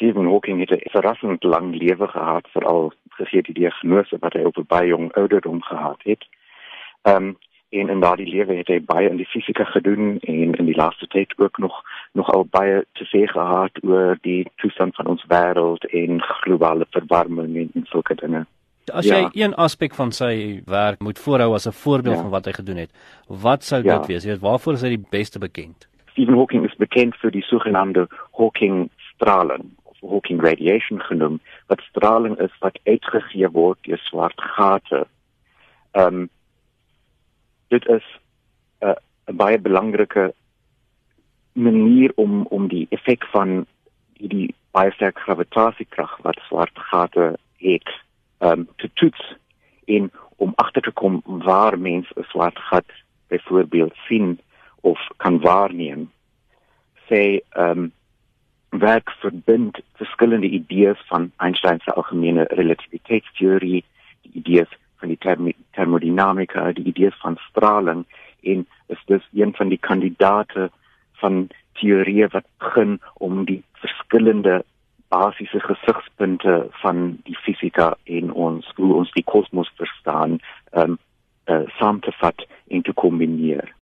Stephen Hawking het 'n verrassend lang lewe gehad, veral gegee die diagnose wat hy op 'n baie jong ouderdom gehad het. En in daardie lewe het hy baie in die fisika gedoen en in die laaste tyd ook nogal baie te sê gehad oor die toestand van ons wêreld en globale verwarming en sulke dinge. As jy een aspek van sy werk moet voorhou as 'n voorbeeld van wat hy gedoen het, wat sou dit wees? Jy weet, waarvoor is hy die beste bekend? Stephen Hawking is bekend vir die sogenaamde Hawking-straling, of Hawking radiation genoem, wat straling is wat uitgegee word deur swart gate. Dit is 'n baie belangrike manier om die effek van die baie sterk gravitasiekrag wat swart gate het, te toets en om agter te kom waar mens 'n swart gat byvoorbeeld sien of kan waarneem. Werk verbind verskillende idees van Einstein se algemene relativiteitsteorie, die idees van die thermodynamika, die idees van straling, en is dus een van die kandidate van teorieë wat begin om die verskillende basiese gesigspunte van die fisika en hoe ons die kosmos verstaan, saam te vat en te kombineer.